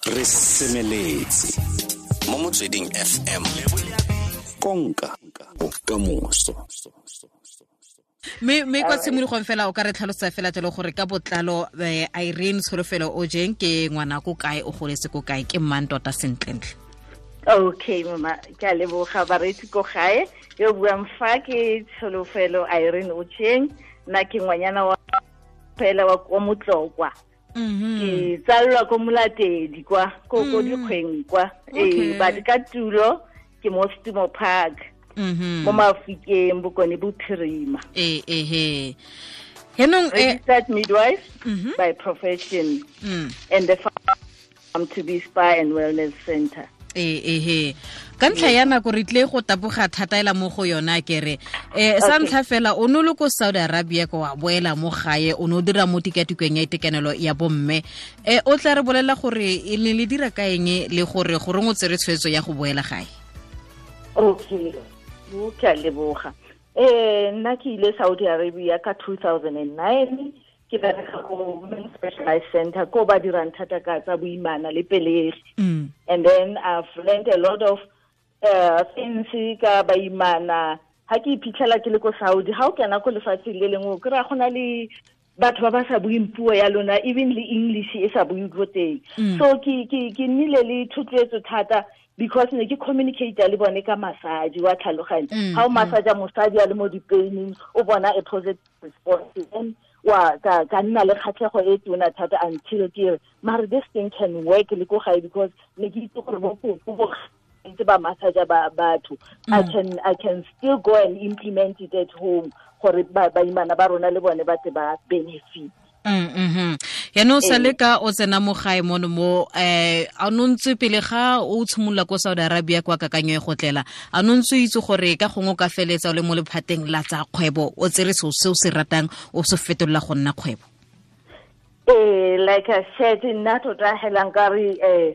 Re semeletse mo Motsweding FM, konka bokamoso. Mme kwa tshimologong fela o ka re tlhalosa fela jalo gore ka botlalo Irene Tsholofelo Ojeng ke ngwana ko kae, o goletse ko kae, ke mang tota sentlentle? Okay mama, ke a leboga bareetsi ko gae. Yo buang fa ke Tsholofelo Irene Ojeng, nna ke ngwanyana wa fela wa kwa Motlokwa. Ke tsallwa ko Molatedi kwa ko dikgweng kwa. But ka tulo ke mo Stumo Park. Mo Mafikeng, Bokone Bophirima. Henong registered midwife by profession and the farm to be spa and wellness center. Ka ntlha ya nako re tle go taboga thata ela mo go yona kere. Sa ntlha fela o no le ko Saudi Arabia ko wa boela mo gae, o no dira mo tikatikong ya itekanelo ya bomme. O tla re bolela gore e ne le dira ka eng le gore goreng o tsere tshwetso ya go boela gae? Okay, ke a leboga. Nna ke ile Saudi Arabia ka 2009, ke bereka ko Women's Specialized Center ko ba dirang thata ka tsa boimana le pelegi. And then I've learned a lot of things ka baimana. Ha ke iphitlhela ke le ko Saudi, ha o kena ko lefatsheng le lengwe o kry-a go na le batho ba ba sa bueng puo ya lona, even le English e sa bue ko teng. So ke nnile le thotloetso thata because ne ke communicate le bone ka massage wa tlhaloganyo. Ha o massage mosadi a le mo dipaining, o bona a positive response, then wa ka nna le kgatlhego e tona thata until ke re mare this thing can work le ko gae, because ne ke itse gore bo bo ntse ba massage ba batho. I can still go and implement it at home gore baimana ba rona le bone ba tle ba benefit. Yaanong sa le ka o tsena mo gae mono mo a no ntse pele ga o tshimolola ko Saudi Arabia kwa kakanyo e go tlela, a no ntse itse gore ka gongwe o ka feletsa o le mo lephateng la tsa kgwebo, o tsere seo se o se ratang o se fetolela go nna kgwebo? Like I said, nna tota hela nkare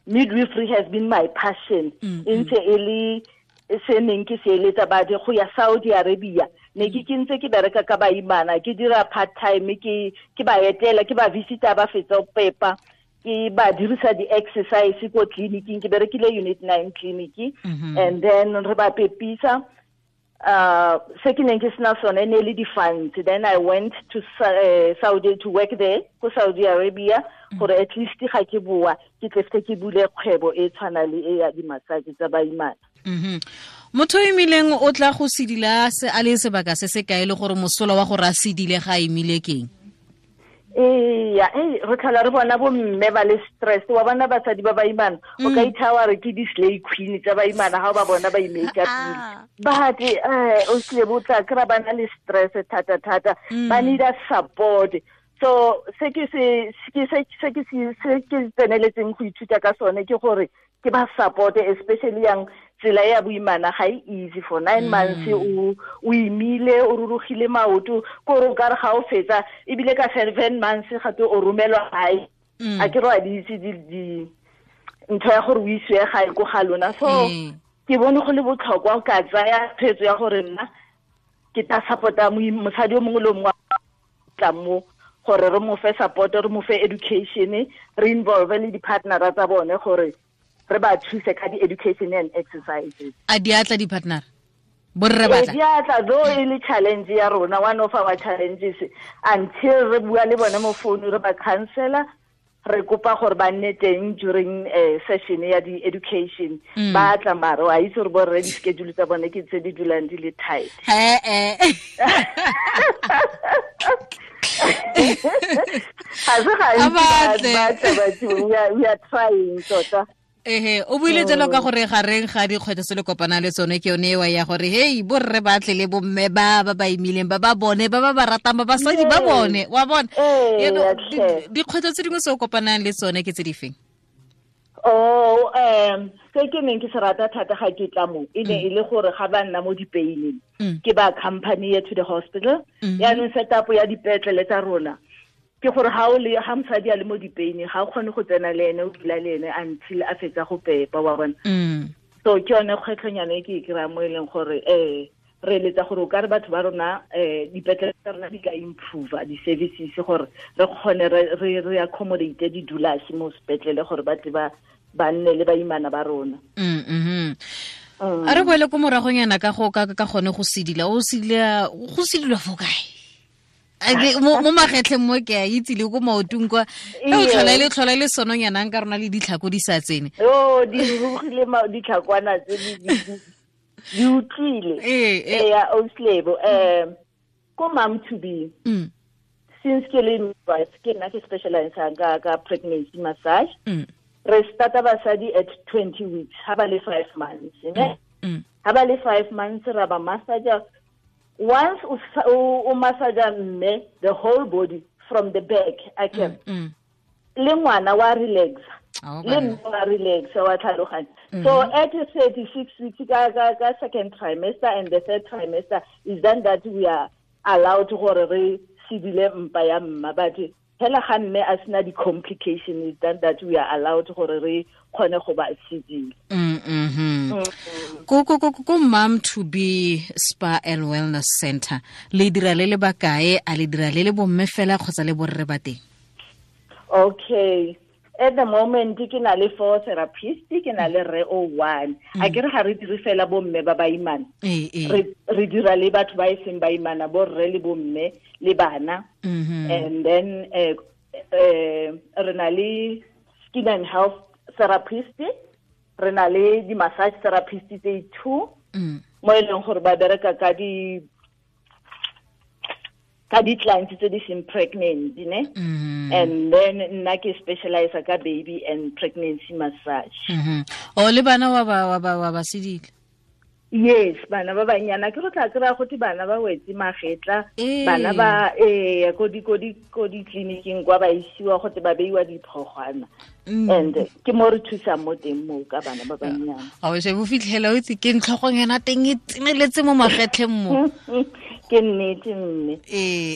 midwifery has been my passion. Ntse e le se neng ke se eletsa badi go ya Saudi Arabia. Ne ke ntse ke bereka ka baimana, ke dira part time, ke ba etela, ke ba visita ba fetsa go pepa, ke ba dirisa di-exercise ko tleliniking, ke berekile unit 9 clinic, and then re ba pepisa. Se ke neng ke sena sone ne le di-funds. Then I went to Saudi to work there, ko Saudi Arabia, gore at least ga ke boa ke tle ke bule kgwebo e tshwana le e ya di-massage tsa baimana. Motho o imileng o tla go sedila se a le sebaka se se kae le gore mosola wa gore a sedile ga a imile keng? Re tlhola re bona bo mme ba le stress, wa bona basadi ba baimana, o ka ithawa re ke di-slay queen tsa baimana ha o ba bona ba imake-upile. But o tlile bo tla kry-a ba na le stress thata-thata, ba need a support. So se ke tseneletseng go ithuta ka sone ke gore ke ba support, especially yang tsela ya boimana ga e easy for 9 months o imile, o rurugile maoto, ko re ka re ga o fetsa ebile ka 7 months gape o romelwa gae. A ke re wa di itse di ntho ya gore o isiwe gae ko ga lona. So ke bone go le botlhokwa ka tsaya tshwetso ya gore nna ke tla support-a mosadi o mongwe le mongwe tla mo gore re mo fe support, re mo fe education, re involve le di-partnera tsa bone gore re ba thuse ka di-education and exercises. A di atla di-partner? Borre ba tla? Di atla, though e le challenge ya rona, one of our challenges, until re bua le bone mo phone, re ba counsela, re kopa gore ba nne teng during session ya di-education. Ba tla mare, wa itse gore borre di-schedule tsa bone ke tse di dulang di le tight. Ga se gantsi ba tla batho, we are trying tota. O buile jalo ka gore gareng ga dikgwetlho tse le kopana le tsone ke yone ewa ya gore hey borre ba tle le bomme ba ba ba imileng ba ba bone ba ba ba ratang ba basadi ba bone wa bona. Dikgwetlho tse dingwe tse o kopanang le tsone ke tse di feng? Se ke neng ke se rata thata ga ke tla mo e ne e le gore ga ba nna mo dipeining ke ba accompany to the hospital. Yaanong setup ya dipetlele tsa rona ke gore ha o le ha mosadi a le mo dipeining ga o kgone go tsena le ene o dula le ene until a fetsa go pepa wa bona. So ke yone kgwetlhonyana e ke e kry-a mo e leng gore Re eletsa gore o ka re batho ba rona dipetlele tsa rona di ka improve di-services gore re kgone re accommodate di-doulas mo sepetlele gore ba tle ba nne le baimana ba rona. A re boele ko moragonyana ka go ka gone go sedila, o sedila go sedilwa fo kae? Mo magetleng mo ke a itse le ko maotong kwa e o tlhola le tlhola le sononyanang ka rona le ditlhako di sa tsene. Oh, di rugile ditlhakwana tse di utlwile. Ee, Auslebo, ko mom to be. Since ke le midwife, ke nna ke specialize ka pregnancy massage. Re starta basadi at 20 weeks, ha ba le 5 months, ne? Ha ba le 5 months ra ba massage. Once o massage mme the whole body from the back, I can. Le ngwana wa relax. Le mme wa relax wa tlhaloganya. So at 36 weeks ka second trimester and the third trimester is then that we are allowed gore re sedile mpa ya mma, but hela ga mme a sena di-complication is then that we are allowed gore re kgone go ba sedile. Ko Mom to Be Spa and Wellness Center le dira le le bakae, a le dira le le bomme fela kgotsa le borre ba teng? Okay, at the moment ke na le 4 therapists, ke na le re o 1. A ke re ga re dire fela bomme ba baimana, re dira le batho ba e seng baimana, borre le bomme le bana. And then re na le skin and health therapist, re na le di massage therapist tse 2 mo e leng gore ba bereka ka di clients tse di seng pregnant, ne? And then nna ke specialize ka baby and pregnancy massage. O le bana wa ba sedile? Yes, bana ba banyana ke re tla kry-a gote bana ba wetse magetla, bana ba ko ditleliniking kwa ba isiwa gote ba beiwa diphogwana. And ke mo re thusang mo teng mo ka bana ba banyana. A o se bo fitlhela o itse ke ntlhogonyana teng e tseneletse mo magetleng mo. Ke nnete mme.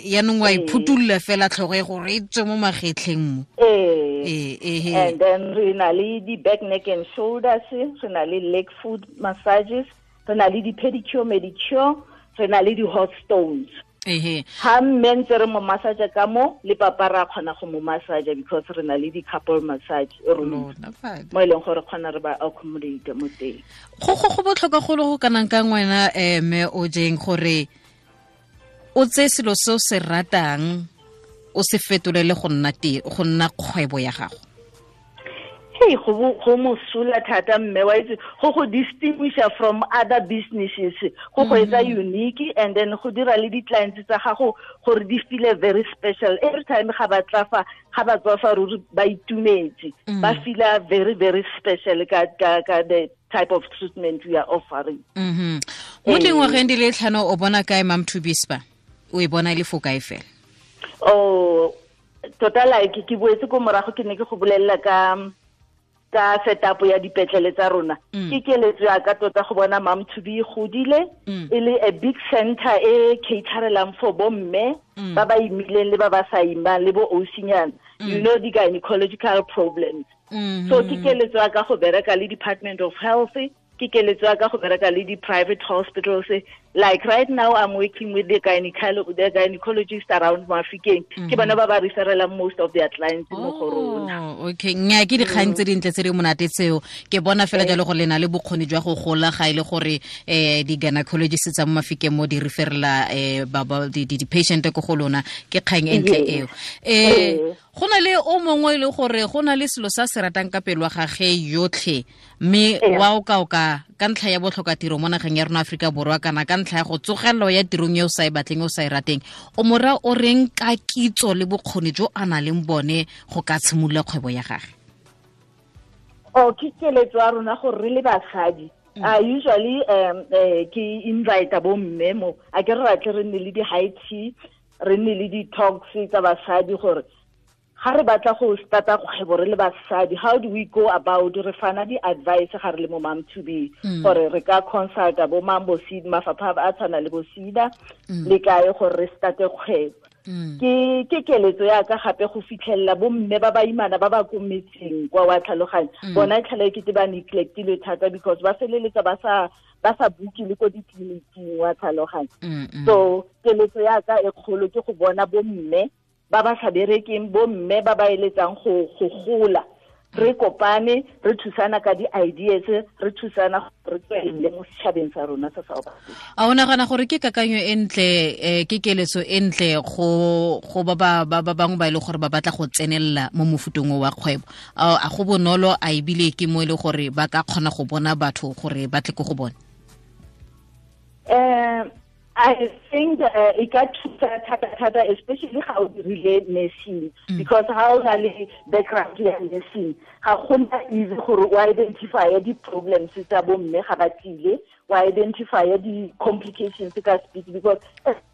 Yaanong wa iphutulla fela tlhogo e gore e tswe mo magetleng mo. And then re na le di-back, neck and shoulders, re na le leg foot massages, re na le di-pedicure, medicure, re na le di-hot stones. Ha mme ntse re mo massage ka mo, le papa ra kgona go mo massage because re na le di-couple massage room mo e leng gore kgona re ba accommodate mo teng. Go botlhokwa go le go kanang ka ngwena mme o jeng gore o tse selo se o se ratang o se fetolele go nna go nna kgwebo ya gago. Hey, go mosola thata mme wa itse go distinguish from other businesses, go etsa unique, and then go dira le di-clients tsa gago gore di feel very special every time ga ba tla fa, ga ba tswa fa ruri ba itumetse, ba feel very very special ka the type of treatment we are offering. Mo dingwageng di le 5 o bona kae Mom to Be Spa? O e bona e le fo kae fela? Oh, tota like ke boetse ko morago ke ne ke go bolelela ka setup ya dipetlele tsa rona. Ke keletso ya ka tota go bona Mom to Be godile e le a big center e caterelang for bomme ba ba imileng le ba ba sa imang le bo osinyana, you know, di gynecological problems. So ke keletso ya ka go bereka le Department of Health, ke keletso ya ka go bereka le di-private hospitals. Like right now I'm working with the gynecologist around Mafikeng. Ke bona ba ba referelang most of their clients mo go rona. Okay, nya ke dikgang tse dintle tse di monate tseo. Ke bona fela jalo gore le na le bokgoni jwa go gola ga ile gore di-gynecologist tsa mo Mafikeng mo di referela di-patient ko go lona, ke kgang e ntle eo. Go na le o mongwe le gore go na le selo sa se ratang ka pelo ga ge yotlhe, mme wa o ka ka ntlha ya botlhoka tiro mo nageng ya rona Afrika Borwa kana ka ntlha ya go tsogelelo ya tirong e o sa e batleng o sa e rateng, o mora o reng ka kitso le bokgoni jo a nang le bone go ka tshimolola kgwebo ya gagwe? Oh, ke keletso ya rona gore re le basadi, usually ke invite bo mme mo, a ke re batle re nne le di-high tea, re nne le di-talks tsa basadi gore ga re batla go starta kgwebo re le basadi, how do we go about, re fana di-advice ga re le mo Mom to Be, gore re ka consulta bo mang bo SEDA, mafapha a tshwana le bo SEDA le kae gore re starte kgwebo. Ke keletso ya ka gape go fitlhelela bo mme ba baimana ba ba ko metseng kwa wa tlhaloganya. Bona tlhale ke ba neglectile thata because ba feleletsa ba sa buke le ko ditleliniking wa tlhaloganya. So keletso ya ka e kgolo ke go bona bo mme ba ba sa berekeng, bo mme ba ba eletsang go gola, re kopane, re thusana ka di-ideas, re thusana re tswelele mo setšhabeng sa rona sa South Africa. A o nagana gore ke kakanyo e ntle, ke keletso e ntle go ba ba bangwe ba e le gore ba batla go tsenelela mo mofutong wa kgwebo? A go bonolo, a ebile ke mo e le gore ba ka kgona go bona batho gore ba tle ko go bone? I think e ka thusa thata, especially ga o dirile nursing, because ha o na le background ya nursing, ga gona easy gore o identify di-problems tsa bomme ga ba tlile, o identify di-complications ka speed, because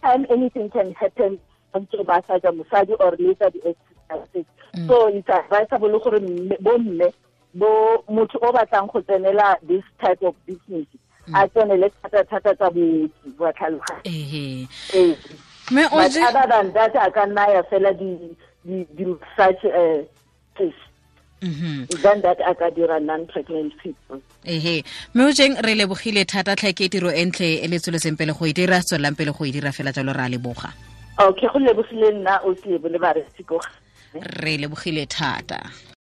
time anything can happen ntse ba sa ja mosadi or later di-exercises. So it's advisable gore bomme bo motho o batlang go tsenela this type of business a tsenele thata tsa booki wa tlhaloganya. Mme o But other than that, a ka nna ya fela di-massage than that a ka dira non-pregnant people. Mme o jeng re lebogile thata tlhe, ke tiro e ntle e le tsweletseng pele go e dira, tswelelang pele go e dira fela jalo, re a leboga. Okay, go lebogile nna o tlebo le baretsi ko. Re lebogile thata.